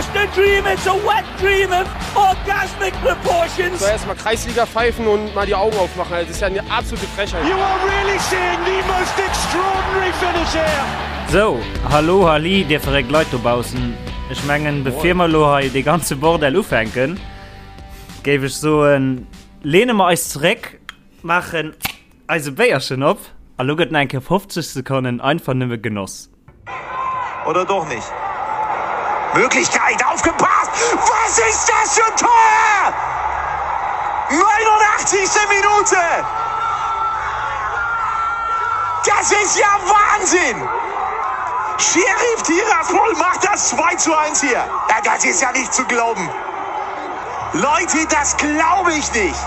just a dream, it's a wet dream of orgasmic proportions. So erstmal Kreisliga pfeifen und mal die Augen aufmachen. Das ist ja eine absolute Frechheit. You are really seeing the most extraordinary finish here. Sou, hallo halli dir verréckt Leit dobaussen. Ech mengen bevir mer lo hei dee ganze Bordell ufänken, géif ech soen, lehne mer eis zeréck, maachen eise Béierchen op a lo gëtt nach eng Kéier 50 Sekonnen einfach nëmme genoss. Oder doch nicht? Möglichkeit, aufgepasst! Was ist das für ein Tor? 89. Minute! Das ist ja Wahnsinn! Sheriff Tiraspol macht das 2 zu 1 hier. Ja, das ist ja nicht zu glauben. Leute, das glaube ich nicht.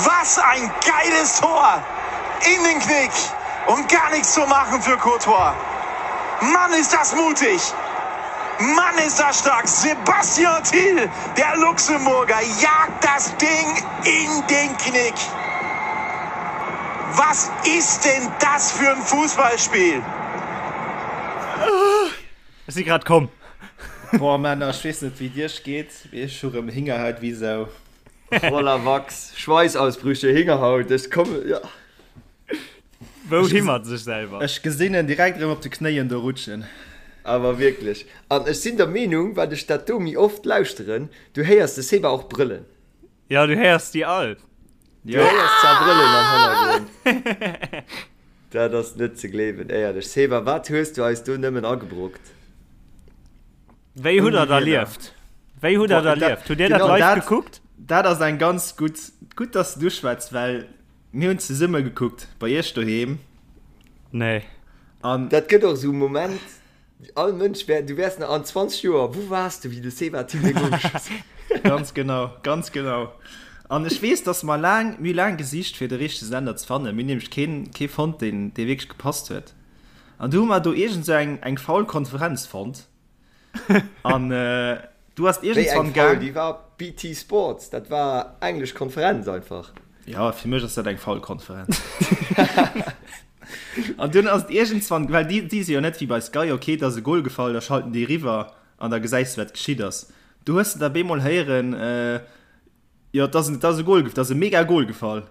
Was ein geiles Tor! In den Knick und gar nichts zu machen für Courtois. Mann, ist das mutig! Mann, ist das stark! Sebastian Thiel, der Luxemburger, jagt das Ding in den Knick. Was ist denn das für ein Fußballspiel? Ech si grad komm. Boah Männer, ech weess net wéi et iech geet, mee ech hu rëm Hingerhaut wéi Sau. Voller Wachs, Schweißausbrüche, Hingerhaut, ech kommen, ja. Wou hi mat sech selwer? Ech gesinn en direkt erëm op de Knéien do rutschen. Awer wierklech. An ech sinn der Meenung, wat ech dat do méi oft lauschteren, du héiers de Seba och brëllen. Jo, du héiers déi all. Du héiers zwar brëllen am Hannergrond. Dat ass net ze gleewen, éierlech. Seba, wat hues du eis do nëmmen agebrockt? Wéi hutt der et erlieft? Wéi hutt der et erlieft? Hutt Dir dat live gekuckt? Dat ass eng ganz gutt, gutt, dass du schwätz, well mir hunn zesumme gekuckt bei iech doheem. Nee. An dat gëtt och esou e Moment, all Mënsch wär, du wäers nach an 20 Joer, wou waars du, wéi de Seba Thill dee Goal geschoss huet? Ganz genau, ganz genau. An ech weess, dass mer laang, mir hu laang gesicht, fir de richtege Sender ze fannen. Mir hunn nämlech keen, kee fonnt, deen, dee wierklech gepasst huet. An du hu mer do iergend sou eng, eng faul Konferenz fonnt. An du ass Wéi eng iergendswann faul? gaang. Déi war BT Sports, dat war englesch Konferenz einfach. Ja, fir mech ass dat eng faul Konferenz. An dunn ass et iergendswann, well déi, déi si jo net wéi bei Sky, ok, et ass e Gol gefall, da schalten déi eriwwer an da gesäis du, wat geschitt ass. Du hues de da bemol héieren, Jo, et ass, et ass e Goal, et ass e mega Goal gefall.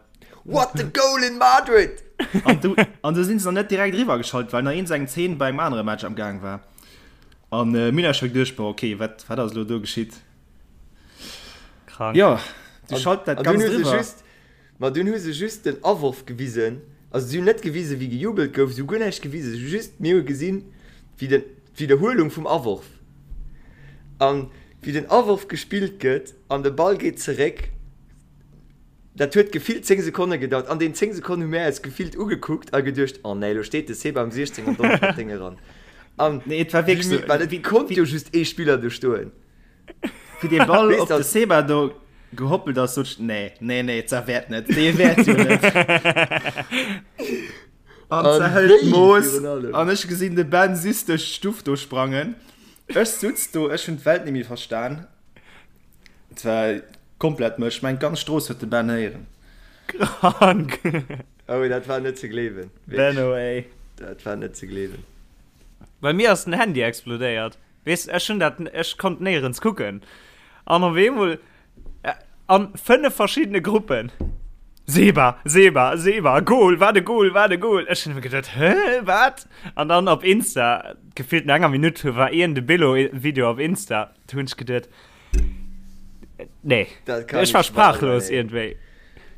What a goal in Madrid! An du, an du sinn se nach net direkt eriwwer geschalt, well nach eens eng Zeen bei engem anere Match am Gaang war. An äh, mir hunn eis scho geduecht, boah, okay, wat, wat ass elo do geschitt? Krank. Jo, du schalt dat An dunn Ganzt hu se eriwwer. just, ma dunn hu se just den Aworf gewisen, also si hunn net gewisen, wéi gejubelt gouf, si hu guer näischt gewisen, si hu just, mir hu gesinn, wéi den, d'Widderhuelung vum Aworf. An wéi den Aworf gespillt gëtt an de Ball geet zeréck, dat huet gefillt 10 Sekonne gedauert. An deenen 10 Sekonnen hu mär eis gefillt ugekuckt a geduecht, oh nee, lo steet de Seba am 16 an donnert dat Déng eran. An Nee, et war wierklech wéi sou, mir, well et konnt jo just ee Spiller do stoen. Wéi dee Ball Weess op de dat. Seba do gehoppelt ass, sot ech, nee, nee, nee, dat wäert net, dee wäert jo net. An An se hëlt wéi d'Mooss virun allem. an ech gesinn de Ben süss duerch d'Stuff do sprangen. Ech sutz do, ech hunn d'Welt nemmi verstan. Et war komplett mësch. Ech mengen d'ganz Strooss huet de Ben héieren. Krank. Oh, dat war net ze gleewen. Wierklech. Benno ey. Dat war net ze gleewen. Bei mir ass den Handy explodéiert. Weess, ech hunn dat, ech konnt néierens kucken. An op eemol An 5 verschiddene Gruppen. Seba, Seba, Seba, Goal, wat e Goal, wat e Goal. Ech hunn geduet, hä, wat? An dann op Insta, gefillt no enger Minutt, war een de Billo-Video op Insta. Du hunn ech geduet, nee, Dat kann ech war nicht wahr sein, sprachlos ey. iergendwéi.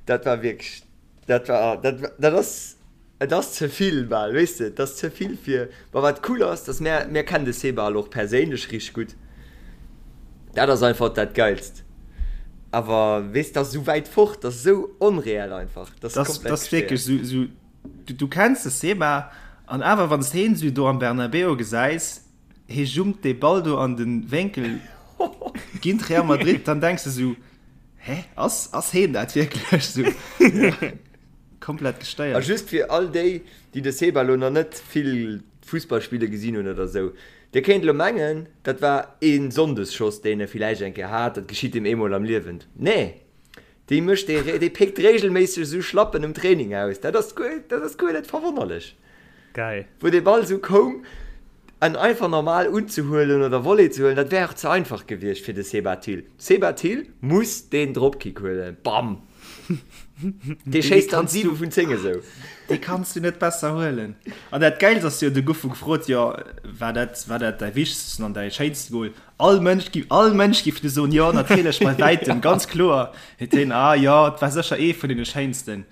Dat war wierklech, dat war, dat, dat ass, Et ass ze vill bal, weess de, et ass ze vill fir. Ma wat cool ass, dass mär, mär kennen de Seba elo och perséinlech richteg gutt, dat ass einfach dat Geilst. Awer weess, dat ass esou wäit fort, dat ass esou onreell einfach, dat ass komplett Dat ass wierklech gestéiert. esou, esou, du kenns de Seba an awer wann s de heen esou do am Bernabéu gesäis, hee jumpt dee Ball do an de Wénkel géint Real Madrid, dann denks de esou, hä, ass, ass heen dat wierklech esou? Komplett A gestéiert. just fir all déi, déi de Seba elo nach net vill Fussball spille gesinn hunn oder sou, Dir kéint elo mengen, dat war ee Sonndesschoss, deen e villäicht eng Kéier hat, dat geschitt him eemol am Liewen. Nee, dee mécht dee, dee péckt reegelméisseg esou Schlappen um Training aus. Dat ass guer, dat ass guer net verwonnerlech. Geil. Wou dee Ball esou koum. En einfach normal unzehuelen oder Volley ze huelen, dat wär och ze einfach gewiescht fir de Seba Thill. Seba Thill muss deen Dropkick huelen. Bam! Dee schéisst dann 7 vun 10 esou. Dee kanns du net besser huelen. An dat Gäilst ass jo, du gouf gefrot, jo, war dat, war dat däi wichtegsten an däi schéinste Goal? All Mënsch gi, all Mënsch giff du soen, jo, natierlech, bei wäitem, ganz kloer. Huet hien, ah jo, et war sécher ee vun deene schéinsten.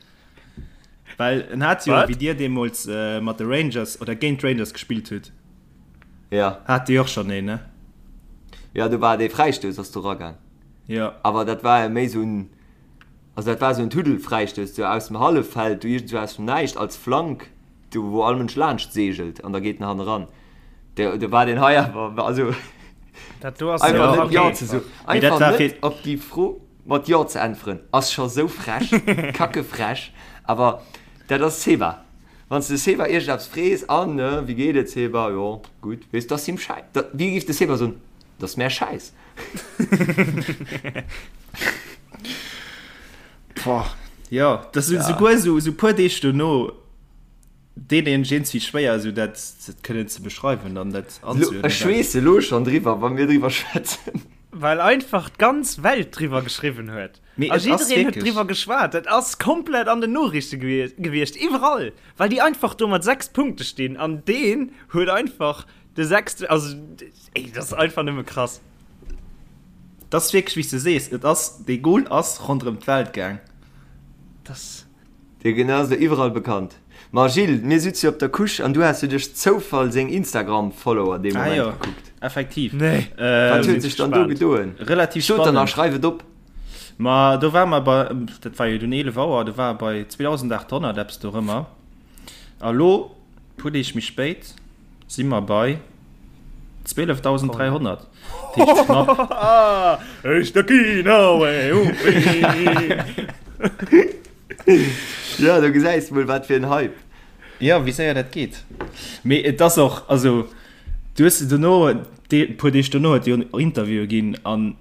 Well en hat jo, wéi dir deemools mat de Rangers oder géint d'Rangers gespillt hutt, ja. hat Dir och schonn een, ne? Jo, do war dee Fräistouss ass do ragaang. Jo. Awer dat war jo méi esou en, also dat war esou en Tuddelfräistouss, sou aus dem Halleffeld, do iergendwou aus dem Näischt als Flank, do wou all Mënsch laanscht seegelt an da geet en hanneran. Do, do war deen hei awer, also Dat do ass einfach net Jo ze soen, einfach net op déi Fro. Mat Jo ze äntweren ass scho sou frech, kacke frech, awer dat ass Seba. Wann s de Seba iergendeppes frees, an ne, wéi geet et Seba, jo gutt, weess, dat ass him schäi, dat, wéi géif de Seba soen, dat ass mär schäiss. Boah, jo, dat ass esouguer esou puer Deeg dono. Deen een iergendwéi schwéier esou dat kënnen ze beschreiwen an dat anzuerdnen. Ech schweesse elo schonn driwwer, wa mir driwwer schwätzen. Well einfach d'ganz Welt driwwer geschriwwen huet. Mee A et ass jiddereen huet wierklech. driwwer geschwat. Et ass komplett an den Noriichte gewiescht, iwwerall. Well déi einfach do mat 6 Punkte stinn an deen huet einfach de sechste, also ey, dat ass einfach nëmme krass. Et ass wierklech, wéi s de sees, et ass, dee Goal ass ronderëm d'Welt gaang. Dat. Dee genau ass elo iwwerall bekannt. Ma Gilles, mir sutze jo op der Couche an du has jo duerch Zoufall seng Instagram-Follower dee Ah Moment jo, gekuckt. effektiv. Nee. Wat huet sech dann do gedoen? Relativ Sot dann a spannend. schreif et op. Ma do ware mer bei, dat war jo dunn 11 Auer, do war e bei 2.800, eppes dorëmmer. A lo, puer Deeg méi spéit, Si mer bei 12.300. Dat heescht knapp. Jo, do gesäis de mol, wat fir en Hype. Jo, wéi séier dat geet. Mee et ass och, also du hues dono, e puer Deeg dono huet jo Interviewe ginn an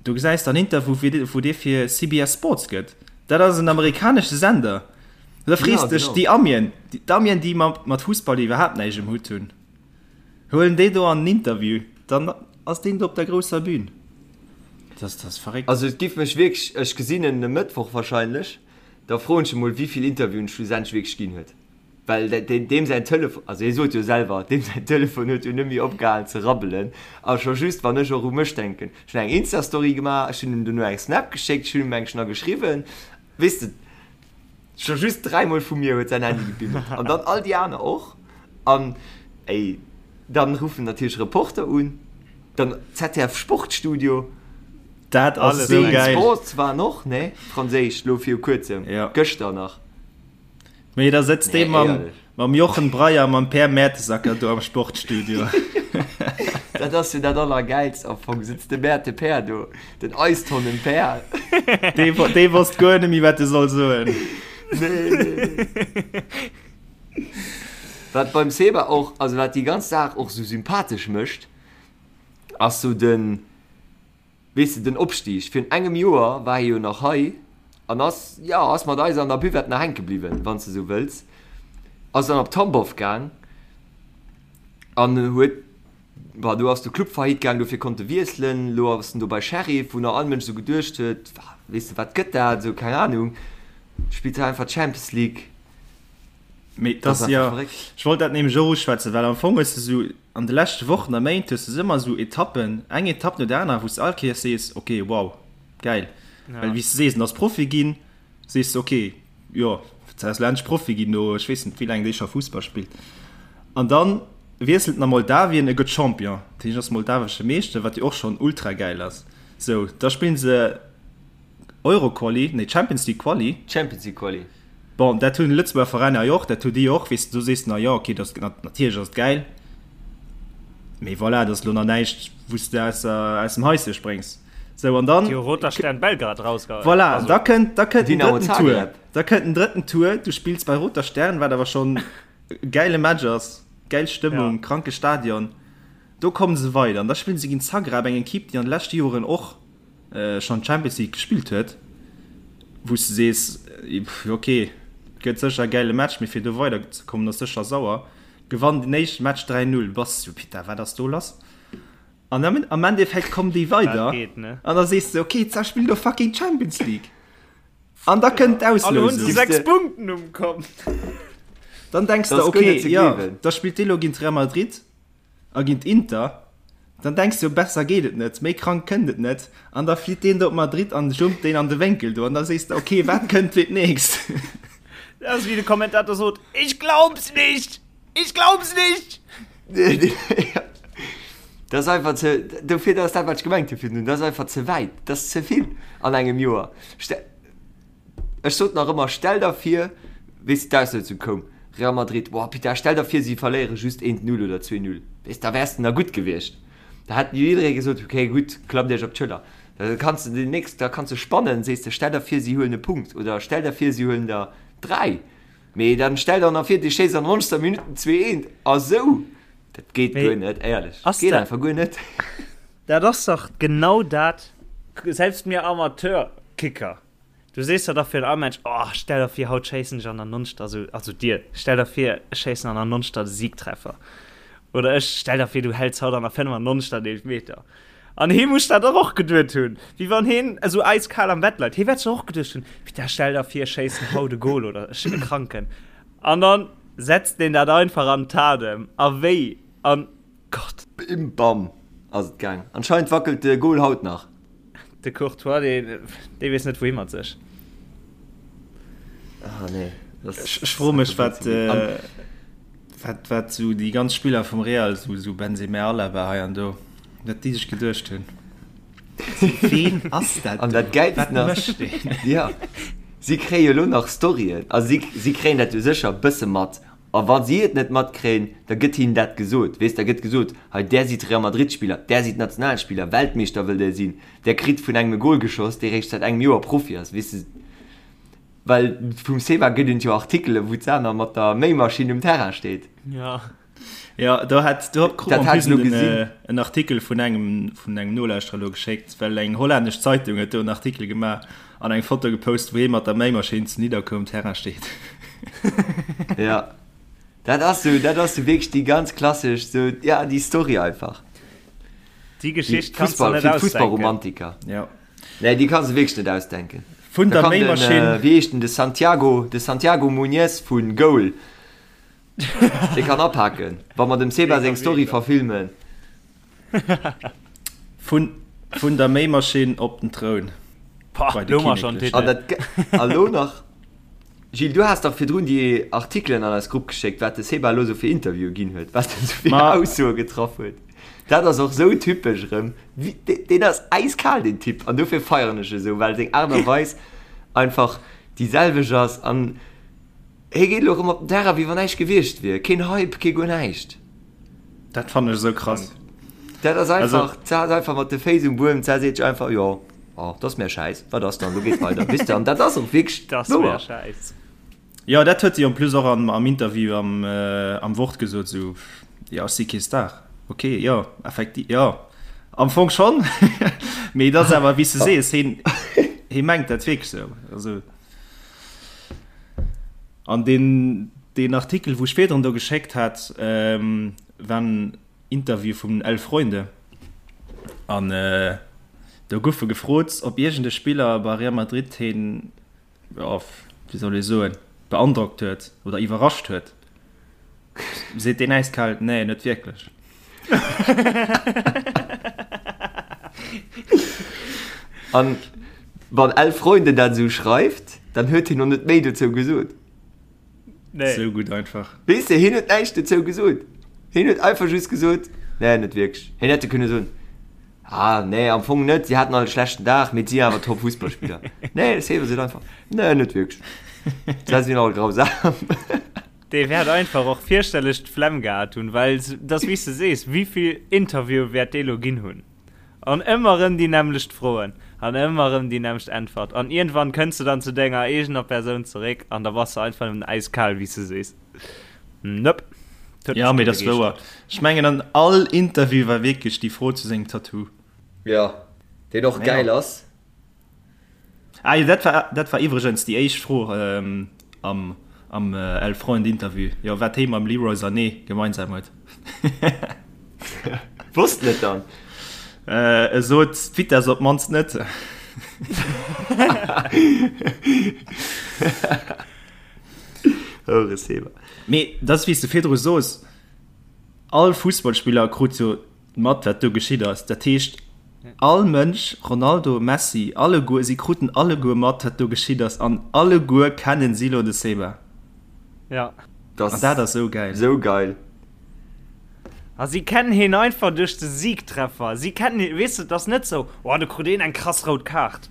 do gesäis de an Interview, wou dee fir CBS Sports gëtt. Dat ass en amerikanesche Sender. Da frees Ja, dech, genau. déi Amien, d'Amien, déi mat, mat Fussball iwwerhaapt näischt um Hutt hunn, huelen déi do an en Interview, dann ass deen do op der grousser Bühn. Dat ass, dat ass verréckt. Also et giff mech wierklech, ech gesinn en e Mëttwoch wahrscheinlech, da froen ech e mol wéivill Interviewen schlussendlech wierklech ginn huet. Well deem säin Telefon, also hie sot jo selwer, deem säin Telefon huet jo net méi opgehalen ze rabbelen. A scho just wann ech och u mech denken, ech hunn eng Insta-Story gemaach, ech hunn him dono eng Snap geschéckt, ech hunn him eng nach geschriwwen, weess de. Scho just dräimol vu mir huet säin Handy gebimmelt. An dann all déi aner och. An ey, dann ruffen natierlech Reporter un, dann ZDF Sportstudio. Dat ass esou geil. Sports waren och, ne? Franséisch, lo viru kuerzem. Ja. Gëschter nach. Mee da sëtzt dee Nee, mam, éierlech. mam Jochen Breyer, mam Per Mertesacker do am Sportstudio. Dat ass jo dat Allergäilst am Fong. Sëtzt de Merte Per do, den Eistonnen Per. Dee, dee wosst guer net méi, wat e soll soen. Nee, nee, nee. Wat beim Seba och, also wat déi ganz Saach och sou sympathesch mécht, ass sou den, Weess de, den Opstig, virun engem Joer war hie jo nach hei an ass, jo, ass mat eis an der Buvette nach hänke bliwwen, wann s de esou wëlls, ass dann op Tambov gaang an huet, bon, do ass de Club faillite gaang, dofir konnt e wiesselen, elo ass en do bei Sheriff, wou nach all Mënsch esou geduecht huet, weess de, wat gëtt dat, esou, keng Anung, spillt hei einfach d'Champions League. Mee dat ass jo, ech wollt dat nämlech och uschwätzen, well am Fong hues de esou an de leschte Wochen a Méint hues de esou ëmmer esou Etappen, eng Etapp no der anerer, wou s de all Kéiers sees, ok, wow, gäil. Well wéi s de sees, en ass Profi ginn, sees de, ok, jo, ass elo endlech Profi ginn no ech weess net wéi laang dee scho Fussball spillt. An da wiesselt en a Moldawien, e gëtt Champion, dat heescht, ass moldawesche Meeschter, wat jo och schonn ultra gäil ass. Sou, da spillen se Euro-Quali, nee Champions League Quali. Champions League Quali. Bon, dat hunn Lëtzebuerger Veräiner jo och, dat hu déi och, weess de, do sees de, na jo, okay, dat ass, natierlech ass et gäil, mee voilà, dat ass elo nach näischt, wou s de aus der, aus dem Haische spréngs. Sou, an dann. Déi hu Roter Stern Belgrad rausgehauen. Voilà, Also. da kënnt, da kënnt den Dynamo drëtten Tour, Zagreb. da kënnt den drëtten Tour, du spills bei Roter Stern, wat awer schonn e gäile Match ass, gäil Stëmmung, Ja. kranke Stadion, do komme se weider an da spillen se géint Zagreb, eng Equipe, déi an de leschte Joren och schonn d'Champions League gespillt huet, wou s de sees, ok, gëtt sécher e gäile Match, mee fir do weider ze kommen ass sécher sauer. Gewannen den éischte Match 3, 0. Bass du Pitta, wat ass do lass? An am, am Endeffekt kommen déi weider an da sees de, okay, d'Sa spillt do fucking Champions League. An da kënnt d'Auslosung. 6 Punkten um Kont. Dann denkst du, okay, ja, da spillt dee lo géint Real Madrid a géint Inter. Dann denkst du, besser geet et net, méi krank kënnt et net. An da flitt deen do op Madrid an jumpt deen an de Wénkel do. An da sees de, okay, wat kënnt fir d'nächst? Dat ass wéi de Kommentator sot, Ich glaub's nicht! Ich glaub's nicht! Dat ass einfach ze, dofir, dat ass dat, wat ech gemengt hu virdrun, dat ass einfach ze wäit, dat ass ze vill an engem Joer. Ech sot nach ëmmer, stell der vir, weess de, d'Auslousung koum, Real Madrid, boah, Pita, stell der vir, si verléiere just eent Null oder 2 Null, weess, da wäers de nach gutt gewiescht. Da hätt jidderee gesot, okay, gutt, klappt iech op d'Schëller. Da kanns de déi nächst, da kanns de spannen, sees de, stell der vir, si huelen e Punkt oder stell der vir, si huelen der 3. Mee dann stell der nach vir, dir schéisst an der 90. Minutt den 2 eent a sou. Dat geet guer net, éierlech. Ass Geet einfach guer net. Dat ass dach genau dat, selbst mir Amateurkicker, du sees der dach fir den Amensch, oh, stell der vir, haut schéissen ech an der 90. Also, also dir, stell der vir, ech schéissen an der 90. de Siegtreffer. Oder ech, stell der vir, du häls haut an der 95. den Eelfmeter. An hee muss dat dach och geduet hunn, wéi wann heen esou eiskal am Bett leit. Hee wäert sech och geduecht hunn, Putain, stell der vir, ech schéissen haut e Gol oder ech sinn e Kranken. An dann setzt deen dat einfach an d'Tat em. A wéi? An, Gott! Bim bam ass et gaang. Anscheinend wackelt de Gol haut nach. De Courtois, dee, dee weess net wouhi mat sech. Ah nee. Ech froe mech wat wat wat sou déi ganz Spiller vum Real, sou sou Benzema, Alaba hei an do, wat déi sech geduecht hunn. Ween ass dat An dat Gäilsten ass, ja, si kréie jo elo nach Storyen, a si si kréien dat jo sécher e bësse mat. A wa si et net matkréien, da gëtt hinnen dat gesot. Weess, da gëtt gesot, hei där sidd Real Madrid-Spiller, där sidd Nationalspiller, Weltmeeschter wëllt där sinn, där kritt vun engem e Gol geschoss, dee réischt säit engem Joer Profi ass, weess de. Well vum Seba gëtt et jo Artikelen, wou d'Sana mat der Méimaschinn um Terrain steet. Ja. Ja, do hat do krut Dat man hat ech elo den, gesinn. äh, en Artikel vun engem vun engem Nolauschterer elo geschéckt, well eng hollännesch Zeitung huet do en Artikel gemaach an eng Foto gepost, wou hie mat der Méimaschinn zu Nidderkuer um Terrain steet. Ja. Dat ass sou, dat ass sou wierklech déi ganz klassesch, sou, ja, déi Story einfach. Déi Déi Geschicht kanns du Fussball, net fir ausdenken. d'Fussballromantiker. Ja. Nee, déi kanns de wierklech net ausdenken. Vun Da der kann den, Méimaschinn. äh, wéi heescht den, de Santiago, de Santiago Muñez vu Goal, dee kann apaken, wa mer dem Seba seng Story verfilmen. Vun, vun der Méimaschinn op den Troun. Pah, Bei de lo mar schon Kinneklechen. An dat, a lo nach, Gilles, du has dach virdrun déi Artikelen an eis Grupp geschéckt, wat de Seba elo sou fir Interviewe ginn huet, wat en sou fir Ma. Aussoe getraff huet. Dat ass och sou typesch erëm. Deen ass äiskal, deen Typ, an dofir feieren ech e sou, well seng Aart a Weis einfach déi selwecht ass an hie geet elo erëm op den Terrain, wéi wann näischt gewiescht wier. Keen Hype, kee guer näischt. Dat fannen ech esou krass. Dat ass einfach, d'Sar ass einfach mat de Féiss um Buedem, d'Sar seet sech einfach, jo, oh, dat ass mär schäiss, wat ass dann, lo geet weider, weess de, an dat ass och wierklech Dat ass wouer. mär schäiss. Jo, dat huet si en plus och am, am Interview am, am Wort gesot, esou, jo, ech si kee Star. Ok, jo, effektiv, jo, am Fong schonn, mee et ass awer, wéi s de sees, hien, hie mengt dat wierklech esou. Also, an deen, deen Artikel, wou ech virdrun do geschéckt hat, war en Interview vum Elf Freunde an do gouf e gefrot, ob iergend e Spiller bei Real Madrid hien, jo, wéi soll ee soen, beandrockt huet oder iwwerrascht huet, seet deen äiskal, Nee, net wierklech. An wann Elf Freunde dat esou schreift, dann huet hien och net méi dozou gesot. Nee. Sou gutt einfach. Weess de, hien huet näischt dozou gesot. Hien huet einfach just gesot, Nee, net wierklech. Hien hätt jo kënne soen, Ah, nee, am Fong net, si haten all e schlechten Dag, mee et si awer top Fussballspiller. Nee, de Sever seet einfach, Nee, net wierklech. Se sinn all grausam. Dee wäert einfach och fierchterlech d'Flemm gehat hunn, well et ass wéi s de sees, wéivill Interviewe wäert dee lo ginn hunn? An ëmmer erëm déi nämmlecht Froen an ëmmer erëm déi nämmlecht Äntwert. An iergendwann kënns de dann zu denger eegener Persoun zeréck an da bass de einfach nëmmen äiskal, wéi s de sees. Nope. Dat huet Ja, mech mee net dat ass wouer. begeeschtert. Ech mengen an all Interview war wierklech déi Fro zu sengem Tattoo. Jo, deen och Naja. gäil ass. Ah jo, dat war, dat war iwwregens déi éischt Fro am, Am El Freund Interview, jo wat hee mam Leroy Sané gemeinsam huet. Wosst en et dann? E sot d'Vitess op d'mannst net. Houreseber. Mee dat ass wéi s de virdru sos, all Fussballspiller krut jo mat wat do geschitt ass. Dat heescht all Mënsch, Ronaldo, Messi, alleguer, si kruten alleguer mat wat do geschitt ass an alleguer kennen si lo de Seba. Ja. An dat ass sou gäil. Sou geil. A si kennen hien einfach duerch de Siegtreffer. Si kennen hien, weess de, et ass net sou, oh do krut een eng krass rout Kaart,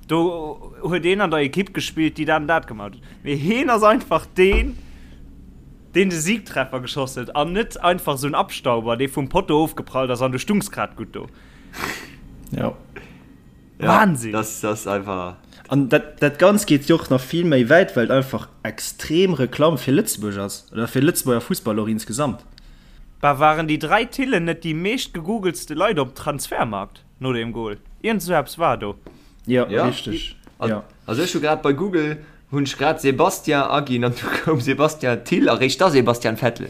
do huet een an der Ekipp gespillt, déi dat an dat gemaach huet. Mee hien ass einfach deen, deen de Siegtreffer geschoss huet an net einfach esou en Abstauber, dee vum Potto ofgeprallt ass an du stungs grad gutt do. Ja. Wahnsinn! Das ass einfach. An dat, dat Ganzt geet jo och nach vill méi wäit, well et einfach extrem Reklamm fir Lëtzebuerg ass, oder fir Lëtzebuerger Fussball och insgesamt. Bah, waren déi 3 Tillen net déi meescht gegoogelste Leit op Transfermarkt no deem Goal? Iergend esou eppes war do. Jo, richteg, jo. Also ech hu grad bei Google Hunn ech grad Sébastien aginn an du koum Sébastien Thill a réischt da Sebastian Vettel.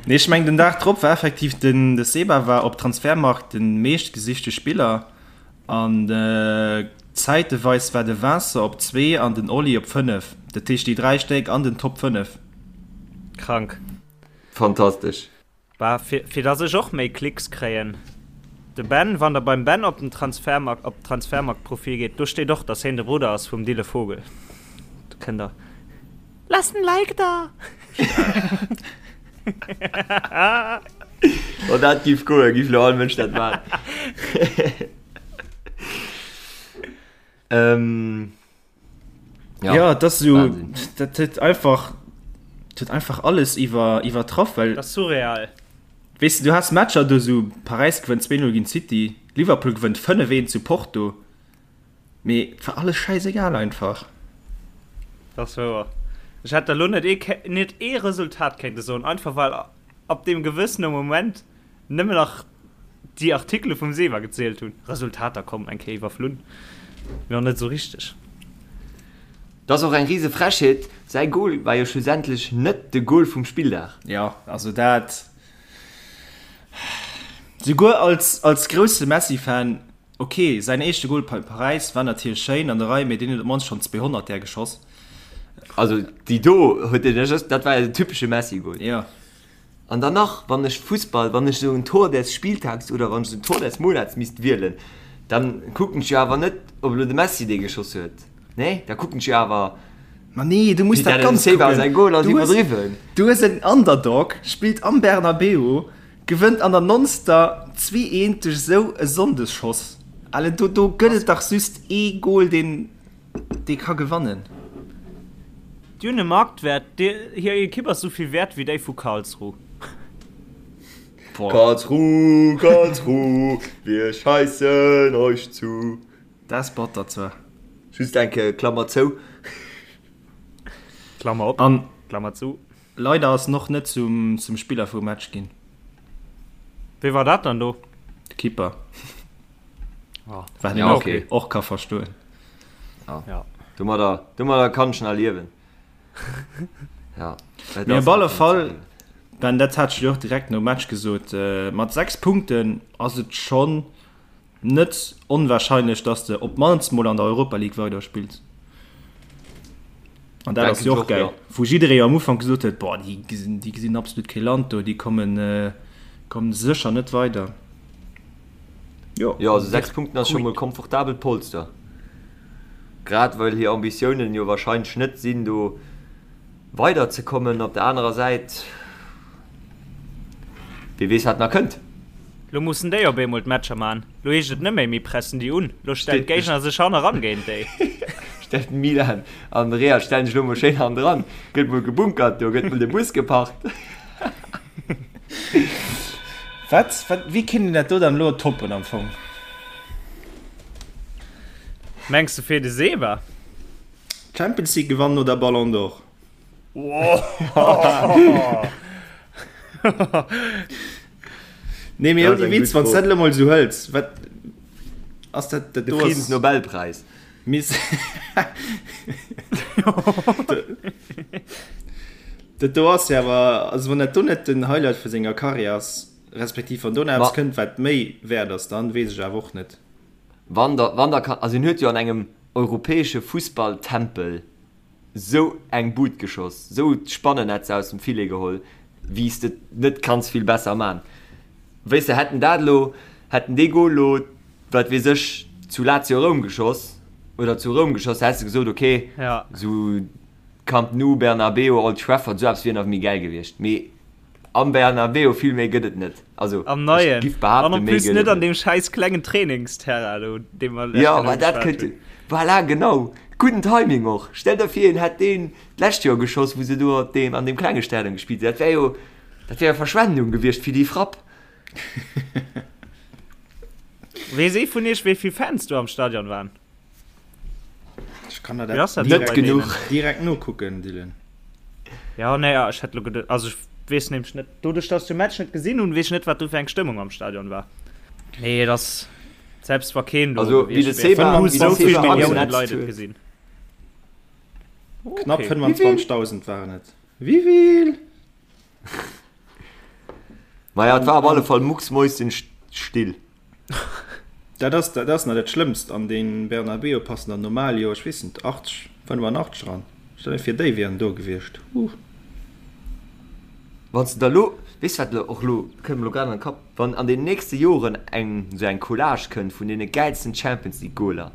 Nee, ech mengen den Dag drop war effektiv den de Seba war op Transfermarkt den meeschtgesichte Spiller an zäiteweis war de Vincent op 2 an den Oli op 5. Dat heescht déi 3 Stéck an den Top 5. Krank. Fantastesch. Bah, fir, fir dass ech och méi Klicks kréien. De Ben, wann der beim Ben op den Transfermarkt, op d'Transfermarkt-Profil geet, do steet och, dass heen de Brudder ass vum Dille Vogel. Do kënnt der. Lasst en Like da! Wann dat giff goen, giff lo all Mënsch dat man. Ähm. Ja, ja das so, dat huet einfach huet einfach alles iwwer iwwertraff well das surreal weißt du, du hast Matcher du so Paris gewënnt 2-0 gegen City Liverpool gewënnt 5-1 zu Porto mee war alles scheißegal einfach das wouer ech hätt der lo net ee net ee Resultat kéinte soen einfach well ab dem gewëssene Moment Nëmmen nach déi Artikele vum Sewa gezielt hunn. Resultater komm eng Kéier iwwerflunn, mee och net esou richteg. Dat ass och eng rise Frechheet, säi Goal war jo schlussendlech net de Goal vum Spilldag. Jo, also dat, souguer als als grousse Messi-Fan, ok, säin éischte Goal bei Paräis war natierlech schéin an der Rei, mee deen huet op d'mannst schonn 200 där geschoss. Also déi do huet en, dat war jo den typesche Messi-Goal. Jo. An dann nach, wann ech Fussball, wann ech esou en Tor des Spieltags oder wann ech esou en Tor des Monats misst wielen, dann kucken ech jo awer net, ob elo de Messi dee geschoss huet. Nee, da kucken ech jo awer. Ma nee, du muss dat Ganzt kucken. Goal ass Du hues, iwwerdriwwen. du hues en Underdog, spillt am Bernabeu, gewënnt an der nonster 2, 1 duerch esou e Sonndesschoss. Allen, do, do gëtt et dach just ee Goal, deen. Dee ka gewannen. Déi hunn e Marktwert, hir Ekipp ass esou vill wäert wéi déi vu Karlsruhe. Karlsruhe, Karlsruhe, wir scheißen euch zu. Dat ass batter zwar. Just eng Kéier Klammer zou. Klammer op, An Klammer zu. leider ass en och net zum Spiller vum Match ginn. Wee war dat dann do? De Keeper. Oh. Wat een Ja, och, okay. och ka verstoen. Ja. Ja. Domadder, domadder kann ech nach liewen. Ja. Et Mee ass op alle einfach Fall, ze Ben, dat hat ech dir och direkt nom Match gesot, äh, mat 6 Punkten ass et schonn net onwahrscheinlech, dass de op d'mannst mol an der Europa League weiderspills. An dat ass jo och gäil, wou jidderee am Ufank gesot huet, boah, déi gesinn, déi gesinn absolut kee Land do, déi kommen, kommen sécher net weider. Jo, jo, also 6 Punkten ass scho mol komfortabelt Polster. Grad well hir Ambitiounen jo wahrscheinlech net sinn, do weider ze kommen. Op der anerer Säit, wie weess wat nach kënnt. Lo mussen déi op eemol d'Matcher man. Lo heescht et net méi mir pressen déi un, lo stellen d'Géigner sech hanneran géint déi. Stellt Milan an Real stellen sech lo mol schéin hannendran, gëtt mol gebunkert do, gëtt mol de Bus geparkt. Wat, wat, wéi kéint een dat do dann elo toppen am Fong? Mengs de fir de Seba? Champions League gewannen oder Ballon d'Or? Nee, mee ouni Witz, wann s dat elo mol esou hëls, wat ass dat, dat De do ass. Friedensnobelpreis. Miss Dat do ass jo awer, also wann dat do net den Highlight vu senger Karriär ass, respektiv wann do nach eppes kënnt, wat méi wäert ass, dann weess ech awer och net. Wann der, wann der kann, also hien huet jo an engem europäesche Fussballtempel sou eng Bud geschoss, sou d'Spannennetz aus dem Filet geholl, wéi s de et net kanns vill besser man. Weess de, hätt en dat elo, hätt en dee Gol elo, wat weess ech, zu Lazio Roum geschoss oder zu Roum geschoss, häss de gesot, ok, sou Camp Nou, Bernabeu, Old Trafford, sou eppes wier nach méi gäil gewiescht. Mee am Bernabeu, vill méi gëtt et net. Also, Am ech Neien. giff An behaapten, en méi plus gëtt net et an net. deem schäiss klengen Trainingsterrain do, dee mer lech Jo, genau ma dat geschwat kënnt, hunn. voilà, genau. Gudden Timing och. Stell der vir, en hätt deen d'lescht Joer geschoss, wou se do op deem, an deem klenge Stadion gespillt hunn. Dat wär jo, dat wär jo Verschwendung gewiescht fir déi Frapp. Weess ee vun iech, wéi vill Fans do am Stadion waren? Ech kann der dat net genuch direkt nokucken, Dylan. Ja, nee, ja, ech hätt lo geduet, also ech weess nämlech net, doduerch dass ech de Match net gesinn hunn, weess ech net, wat do fir eng Stëmmung am Stadion war. Nee, et ass, selbst wa keen do also, gewiescht wär, hu sou vill Milliounen Leit et gesinn. Knapp 25.000 waren et. Wivill? Maja, et war op alle Fall mucksmäuschenstill. Dat ass, dat ass nach dat Schlëmmst. An dee Bernabeu passen der normal jo, ech weess net, 80, 85 eran. Stell dir vir, déi wieren do gewiescht. Huh. Wann s de der elo, weess wat elo och elo, kënnt mer elo grad an de Kapp, wann an den nächste Joren eng esou eng Collage kënnt vun deene gäilsten Champions League Goaler,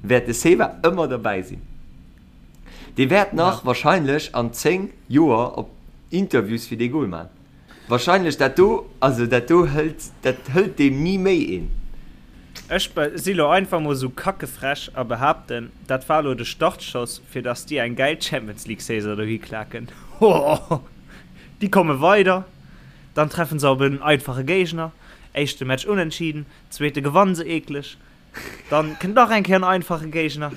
wäert de Seba ëmmer derbäi sinn. Dee wäert nach wahrscheinlech an 10 Joer op Interviews fir dee Goal man. Wahrscheinlech dat do, also dat do hëlt, dat hëlt deem ni méi een. Ech si lo einfach mol sou kackefrech a behaapten, dat war lo de Startschoss fir dass déi eng gäil Champions League Saison dohi klaken. Hohoho! Déi komme weider, dann treffen se op en einfache Géigner, éischte Match unentschieden, zweete gewannen se eekleg, dann kënnt nach eng Kéier en einfache Géigner.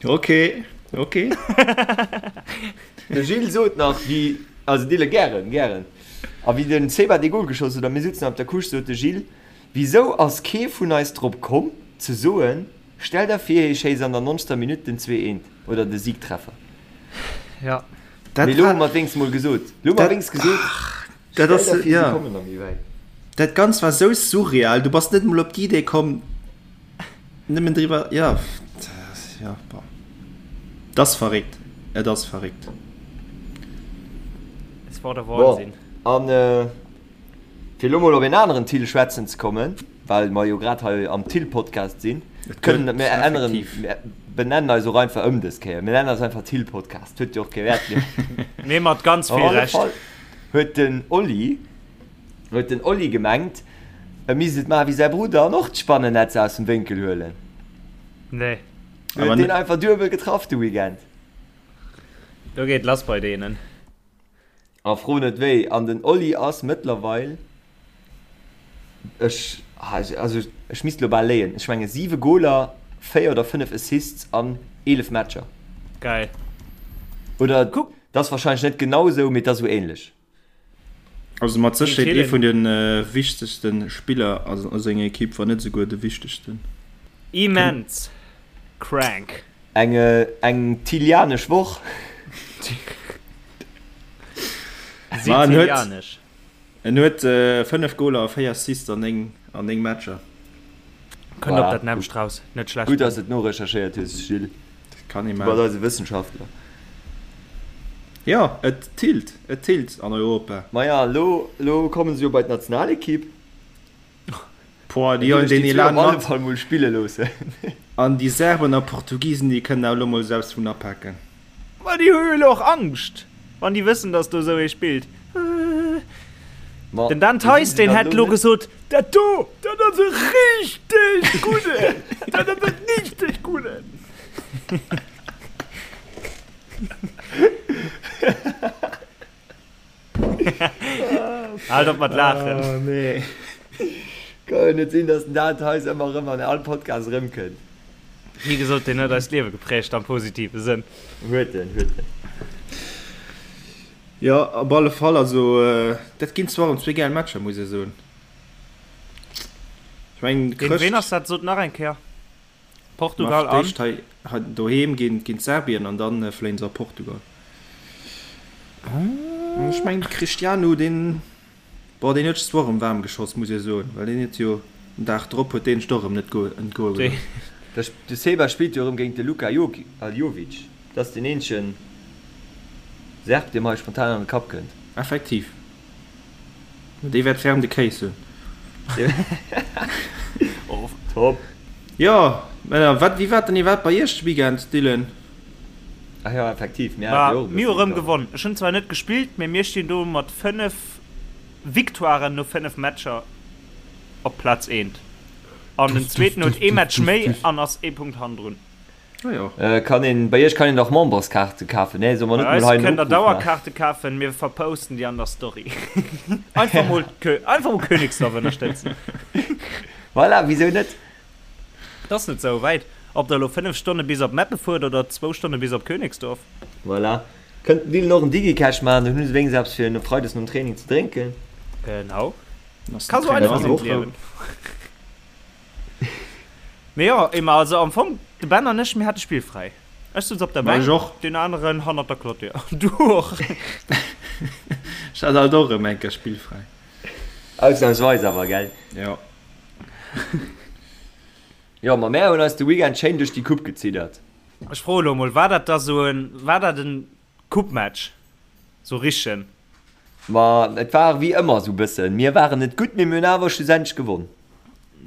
Ok, ok. De Gilles sot nach, wéi, also Dille, gären, gären. A wéi den Seba dee Gol geschoss huet a mir sutzen op der Couche, sot de Gilles, Wisou ass kee vun eis drop komm, ze soen, stell der vir, hie schéisst an der nonzter Minutt den zweeënt oder de Siegtreffer. Ja. Mee lo hu mer et wéinst mol gesot. Lo hu mer wéinst gesot, stell der vir, si kommen nach méi wäit. Dat Ganzt war sou surreal, du bass net emol op d'Idee komm, Nëmmen driwwer, jo, jo, bon. Et ass verréckt, et ass verréckt. Es war der Wahnsinn. Bon, an fir elo mol op een aneren Thill schwätzen ze kommen, well mer jo grad hei am Thill-Podcast sinn, kënnen mir änneren, mir benennen eis och einfach ëm dës Kéier. Mir nennen eis einfach Thill-Podcast, huet jo och kee Wäert méi. Mee mat ganz vill Recht. Op alle Fall huet den Oli Huet den Oli gemengt, e misst et maache wéi säi Brudder an och d'Spannennetz aus dem Wénkel huelen? Nee. Huet deen einfach duebel getraff de Weekend. Do geet lass bei deenen. A fro net wéi. An den Oli ass mëttlerweil, ech, also ech misst elo bal léien, ech menge 7 Goler, 4 oder 5 Assists an 11 Matcher. Geil. Oder, dat ass wahrscheinlech net genau esou, mee et ass esou ähnlech. Also mat Sécherheet ee vun de wichtegste Spiller a senger Ekipp, wann net esouguer de wichtegsten. Immens crank. Eng eng Tilianesch Woch. Sizilianesch. En huet 5 Goler a 4 Assists an 9 an 9 Matcher. Kënnt op dat nämmlecht raus. Net schlecht. Gutt, dass de et norecherchéiert hues, Gilles. Dat kann ee Du bass maachen. eise Wëssenschaftler. Jo, et tillt, et tillt an Europa. Maja, elo, elo komme se jo bei d'Nationalekipp. Boah, déi huelen deen Elan mat. Op alle mat. Fall mol spille loossen. An déi Serben a Portugisen, déi kënnen awer elo mol selbst vun apaken. Ma déi hu jo elo och Angscht, wann déi wëssen, datt do esou ee spillt. Ma Den Dan wéi sinn Theis, se deen dann hätt elo elo net? gesot, Dat do, dat ass e richteg gudden! Dat ass e richteg gudden! Haalt op mat laachen. Oh nee. Ka jo net sinn, datt den Dan Theis ëmmer erëm an all Podcast erëmkënnt. Wéi gesot, deen huet eist Liewe geprägt am positive Sënn. Huet en, huet en. Jo, op alle Fall. Also dat ginn zwar erëm zwee gäil Matcher, muss ee soen. Ech mengen, Géint ween ass dat? Sot nach eng Kéier. Portugal an? D'éischt hei doheem géint Serbien an dann fléien se a Portugal. Ech mengen de Cristiano deen, bon deen huet sech zwar och erëm waarm geschoss muss ee soen, well deen huet jo den Dag drop huet deen sech och erëm net entgoe gelooss. De Seba spillt jo erëm géint de Luka Jovic, dat ass deen eenzegen Serb dee mer hei spontan an de Kapp kënnt. Effektiv. Dee wäert ferm de Kéis hunn. Oh, top! Jo, Männer, wat, wéi war et dann iwwerhaapt bei iech de Weekend, Dylan? Ach jo, effektiv, mir hate jo och e Mir hu bëssen rëm gewonnen. Ech hunn zwar net gespillt, mee mir stinn do mat 5 Victoiren no 5 Matcher op Plaz eent. An den zweeten huet ee Match méi an ass ee Punkt hannendrun. Ah jo. Kann een, bei iech kann een dach Memberskaarte kafen, nee? Solle mer net Bei mol eis hei en kënnt der Opruff maachen? Dauerkaarte kafen, mir verposten déi an der Story. Einfach mol Kö, einfach mol Königsdorf ënnerstëtzen. Voilà, wisou net? Et ass net sou wäit, ob der elo 5 Stonne bis op Meppen fuert oder zwou Stonne bis op Königsdorf. Voilà. Kënnt den Dylan och en Digicash maachen, dann hu se wéinstens eppes fir no Freides nom Training ze drénken. Genau. Ka sou einfach sinn d'Liewen. Mee jo, Emma, also am Fong, de Ben an ech, mir hate spillfräi. Ech souz op der Ma ech Bänk, och. deen aneren hannert der Clôture. Du och. Ech hat alt och erëm eng Kéier spillfräi. Ausnamsweis awer, gell? Jo. Jo, ma mär hunn eis de Weekend schéin duerch déi Coupe geziddert. Ech froe lo mol, war dat da sou en, war dat en Coupe-Match? Sou richtegen? Ma et war wéi ëmmer sou bëssen, mir waren net gutt, mee mir hunn awer schlussendlech gewonn.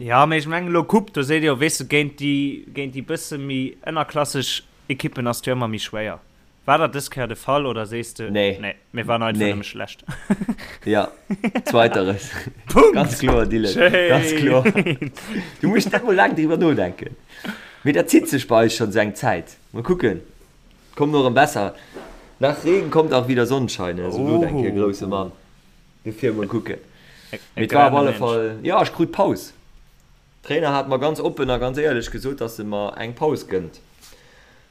Jo, mee ech mengen elo Coupe, do seet ee jo, weess de, géint déi, géint déi bësse méi ënnerklasseg Ekippen ass et jo ëmmer méi schwéier. War dat dës Kéier de Fall oder sees de, Nee. nee, mir waren einfach Nee. nëmme schlecht? Ja, zweiteres. Punkt! Ganz kloer, Dylan, ganz kloer. Schéin! Du muss net mol laang driwwer nodenken. Mee dat zitt sech bei eis schonn sou eng Zäit. Mol kucken. Kommt och erëm besser. Nach Regen kommt auch wieder Sonnenschein, ne? Sou sot eng Kéier e grousse Mann. Dofir mol kucken. Mee et war op alle Fall, jo, ech krut Paus. Trainer hat mer ganz oppen a ganz éierlech gesot, dass e mer eng Paus gënnt.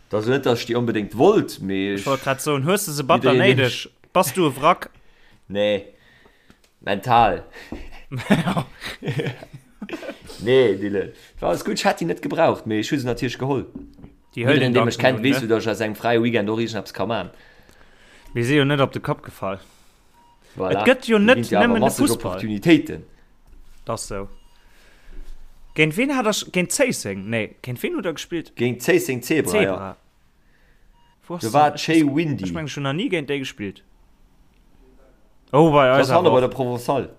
Et ass elo net, dass ech déi onbedéngt wollt, mee Ech wollt grad soen, hues de se batter jiddereen, dee néideg? Bass du e Wrack? Nee, mental. Nee, Dylan, et war alles gutt. Ech hätt déi net gebraucht, mee ech hu se natierlech geholl. Déi hëlt Jiddereen, een dee mech dann kennt, un, weess ne? jo, dass ech aus engem fräie Weekend och iergendeppes ka man. Mir si jo net op de Kapp gefall. Voilà. Et gëtt jo Do net ginn et jo awer nëmmen de masseg Fussball. Opportunitéiten. Dat ass sou. Géint ween hat der, géint Zéisseng? Nee, géint ween hutt der gespillt? Géint Zéisseng Zebra, jo. Zebra. Wou ass Do war dat? et schéi windy. Ech mengen, ech hunn nach ni géint déi gespillt. Oh, bei Dat eis ass hanne awer bei och. der Provençale.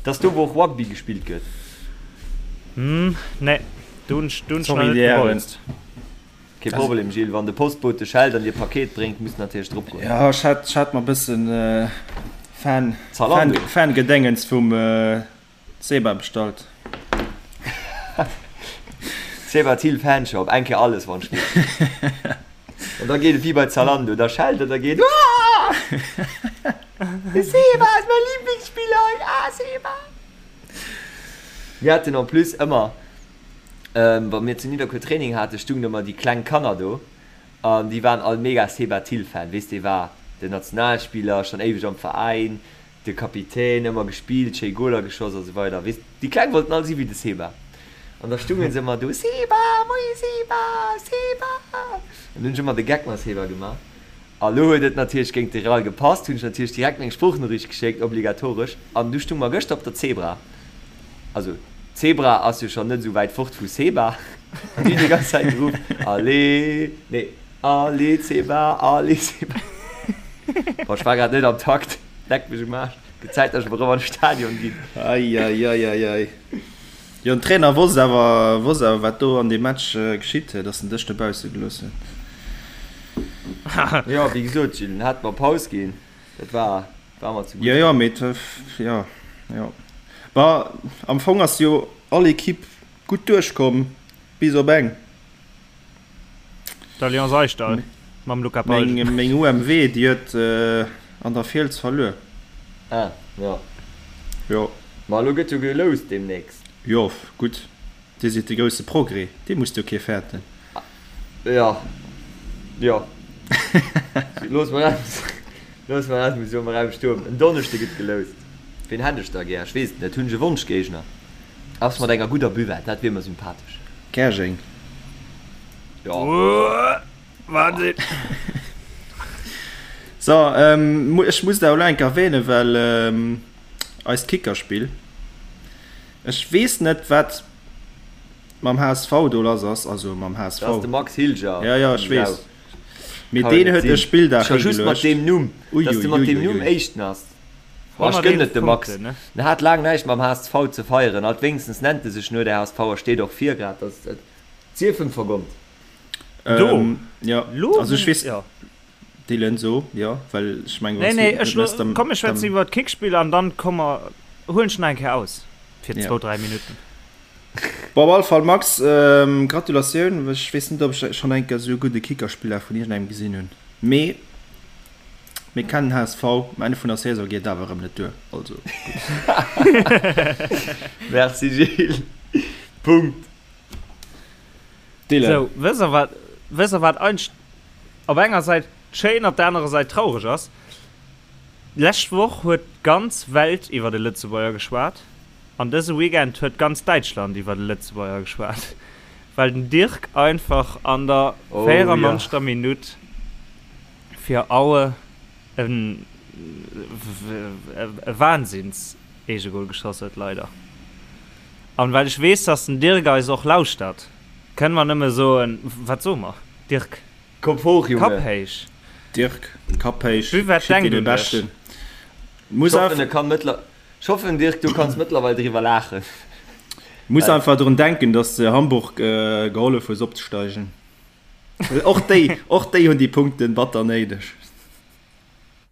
Dat ass do, wou och Rugby gespillt gëtt. Hm, nee, do hunn ech, do hunn ech nach Sorry, net déi Hären. gebolzt. Kee Problem, Gilles. Wann de Postbote schellt an dir Paket bréngt, muss natierlech drop goen. Jo, ech hat, ech hat mer bëssen Fan, Zalando. Fan, Fangedéngens vum Seba bestallt. Seba Thill Fanshop, eng Kéier alles wann ech geet. An da geet et wéi bei Zalando, da schellt et a geet Aah! De Seba ass mäi Lieblingsspiller, ah Seba! Mir haten en plus ëmmer, wa mir zu Nidderkuer Training haten, stungen ëmmer déi kleng Kanner do an déi waren all mega Seba Thill Fan. Weess dee war den Nationalspiller, schonn éiweg am Veräin, De Kapitän, ëmmer gespillt, schéi Goler geschoss a sou weider. Weess, déi Kleng wollten all si wéi de Seba. An da stungen se ëmmer do, Seba, moie Seba, Seba! An hunn ech ëmmer de Geck mam Seba gemaach. A lo huet et natierlech géint de Real gepasst, hunn ech natierlech direkt meng Sproochnoriicht geschéckt, obligatoresch. An du stung mer gëschter op der Zebra. Also, Zebra ass jo schonn net esou wäit fort vu Seba. An déi hunn déi ganz Zäit geruff, Allez, nee, Allez Seba, allez Seba. Bon, ech war grad net am Takt. Leck mech um Aarsch. Gëtt Zäit, dass ech mol erëm an de Stadion ginn. Eieieiei. Jo, den Trainer wosst awer, wosst awer wat do an deem Match geschitt, dass en dech dobausse gelooss huet. Jo, wéi gesot, Gilles, en hat mer Paus ginn. Dat war, war mer ze gutt. Jo, jo, mee et, jo, jo. Bon, am Fong ass jo all Equipe gutt duerchkomm, bis op eng. D'Alliance Aischdall mam Luca Palgen. Meng, meng UMW, déi huet an der Fiels verluer. Ah, jo. Jo. Ma elo gëtt jo geloust deemnächst. Jo, gutt, Dir sidd de grousse Progrès, dee musst jo kee fäerten. Jo, jo. Looss mer dat, looss mer dat mol esou am Raum stoen. En Donneschde gëtt geloust. Ween hätt ech da gär? Ech weess et net. Hunn ech e Wonschgéigner? Ass mat enger gudder Buvette, dat wier mer sympathesch. Käerjeng. Jo. Wahnsinn. So, ech muss dat elo eng Kéier erwähnen, well eist Kickerspill, ech weess net wat mam HSV do lass ass, also mam HSV. Dat ass de Max Hilger. Ja, ja, ech weess. Mee deen huet e Spilldag Scho just mat higeluecht. deem Numm, dass de mat deem Numm Éischten ass. Boah, ech gënnen et dem Max. Ne? En hat laang näischt mam HSV ze feieren. Alt wéinstens nennt e sech no der HSV a steet och vir grad. Dat et sief em vergonnt. Do. Ähm, ja, Lo, also ech weess, ja. Dylan, so, jo, well ech mengen, Nee, wann s nee, du ech net mess, dann, komm, mir schwätzen dann, iwwer d'Kickspill an dann komme mer, huelen ech nach eng Kéier aus fir ja. zwou, dräi Minutten. Bon, op alle Fall, Max, ähm, Gratulatioun. Ech weess net, ob ech schonn eng Kéier esou e gudde Kickerspiller vun iergendengem gesinn hunn, mee mir kennen HSV, um Enn vun der Saison geet et awer erëm net duer, also gutt. Merci Gilles. Punkt. Dylan. Sou, wësst der wat, wësst der wat eigentlech op enger Säit schéin, op der anerer Säit traureg ass? D'lescht Woch huet d'ganz Welt iwwer de Lëtzebuerger geschwat an dëse Weekend huet ganz Däitschland iwwer de Lëtzebuerger geschwat, well den Dirk einfach an der Oh ja. 94. Minutt fir Aue e e Wahnsinns-Eegegol geschoss huet, leider. An well ech weess, dass den Dirk eis och lauschtert, kënne mer nëmme soen, wat soe mer, Dirk? Kopp hoch, Junge! Kapp héich! Dirk, Kapp héich, Buvette schick denkt dir de un dech! Beschten. Muss Ech hoffen, einfach, e kann mëttler, ech hoffen, Dirk, du kanns mëttlerweil driwwer laachen. muss Well. einfach drun denken, dass de Hamburg gehollef hues opzesteigen. Well och déi, och déi hunn déi Punkten batter néideg.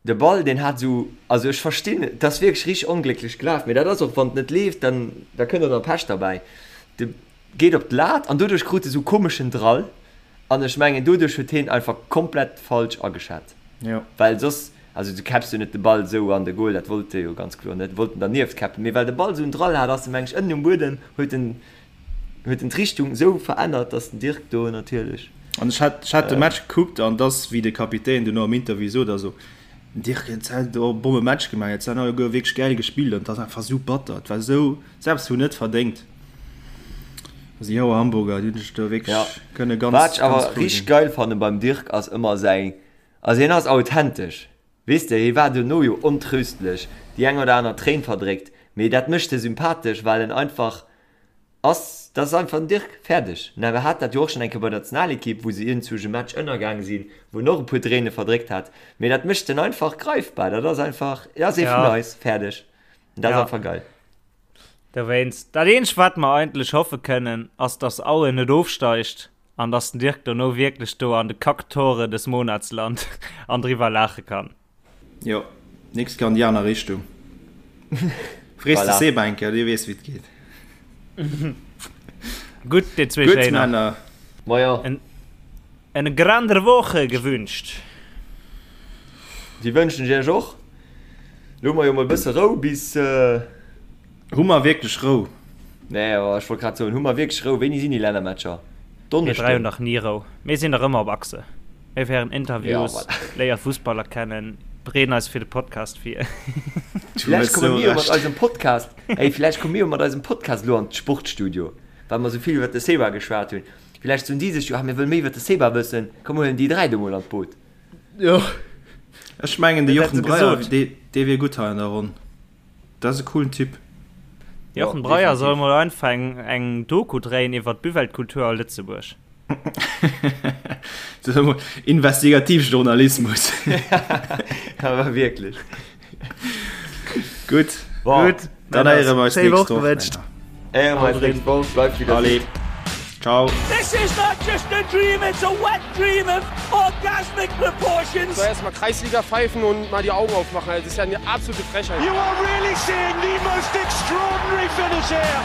De Ball deen hat esou, also ech verstinn, et ass wierklech richteg onglécklech gelaf, mee dat ass och wann et net leeft, dann da kënnt och nach Pech derbäi. De geet op d'Lat an doduerch krut e sou komeschen Drall an ech mengen doduerch huet heen einfach komplett falsch ageschat, Jo. well soss, also du käpps jo net de Ball esou an de Goal, dat wollt e jo ganz kloer net, wollt en dernieft käppen, mee well de Ball esou en Drall hat, ass e meng ech ënnen um Buedem, huet en huet en d'Richtung esou verännert, dass den Dirk do natierlech. An ech hat, ech hat de Match gekuckt an dass, wéi de Kapitän duerno am Interview sot, also den Dirk huet hei do e Bomme Match gemaach, et han alleguer wierklech gäil gespillt an et ass einfach esou batter, et war esou, selbst hunn net verdéngt. Also déi Hauer Hamburger, déi hunn sech do Ja, wierklech kënne wat ganz, ech ganz awer frou richteg sinn. geil fanne beim Dirk ass ëmmer säi, also hien ass authentesch, weess de, hie war duerno jo ontröstlech, déi eng oder aner Tréin verdréckt, mee dat mécht e sympathesch, well en einfach Ass, dat ass einfach den Dirk, fäerdeg. Mä mir hat dat jo och schonn eng Kéier bei der Nationalekipp, wou se iergendwou e Match ënnergaang sinn, wou en och e puer Tréine verdréckt hat. Mee dat mécht en einfach greifbar. Dat ass einfach, dat ass ee vun Ja. eis, fäerdeg. An dat ass Ja. einfach geil. Dowéinst, dat eenzegt wat mer eigentlech hoffe kënnen, ass dass Aue net ofsteigt an dass den Dirk dono wierklech do an de Kacktore des Monats lant an driwwer laache kann. Jo, nächst Kéier an déi aner Richtung. Frees de Voilà. Seb eng Kéier, dee weess wéi et geet. Gutt, dir zwee Gutt, Schéiner. Männer. Maja. En, en grander Woche gewünscht. Déi wënschen ech iech och. Lo hu mer jo mol e bësse Rou bis. Hu mer wierklech Rou? Nee, awer ech wollt grad soen, hu mer wierklech Rou? Wéini sinn déi Lännermatcher? Mir 3 hunn Donneschden? dach ni Rou. Mir sinn dach ëmmer op Achse. Mir féieren Ja, Interviews, voilà. léiere Fussballer kennen, bereeden eis fir de Podcast vir. Du Vläicht hues komme sou mir jo mat Recht. eisem Podcast, ey, vläicht komme mir jo mat eisem Podcast elo an d'Sportstudio, well mer esou vill iwwer de Seba geschwat hunn. Vläicht soen déi sech jo, ah, mir wëlle méi iwwer de Seba wëssen, komm mir huelen déi 3 do mol an d'Boot. Jo. Ech mengen, de Dat hätt Jochen se Breyer, gesot. dee, dee wier gutt hei an der Ronn. Dat ass e coolen Typ. Jochen Jo, Breyer soll definitiv. mol einfach eng, eng Doku dréien iwwer d'Buvette-Kultur a Lëtzebuerg. Dat ass emol Investigativjournalismus. Awer wierklech. Gutt, Bon, Gutt, dann Männer, héiere mer eis schéi nächst Woch Woch, gewënscht. Männer. héiere mer eis nächst Woch. Bleift wéi der Allez, sidd. ciao. This is not just a dream, it's a wet dream of orgasmic proportions. Soll erstmal Kreisliga pfeifen und mal die Augen aufmachen. Das ist ja eine absolute Frechheit. You are really seeing the most extraordinary finish here.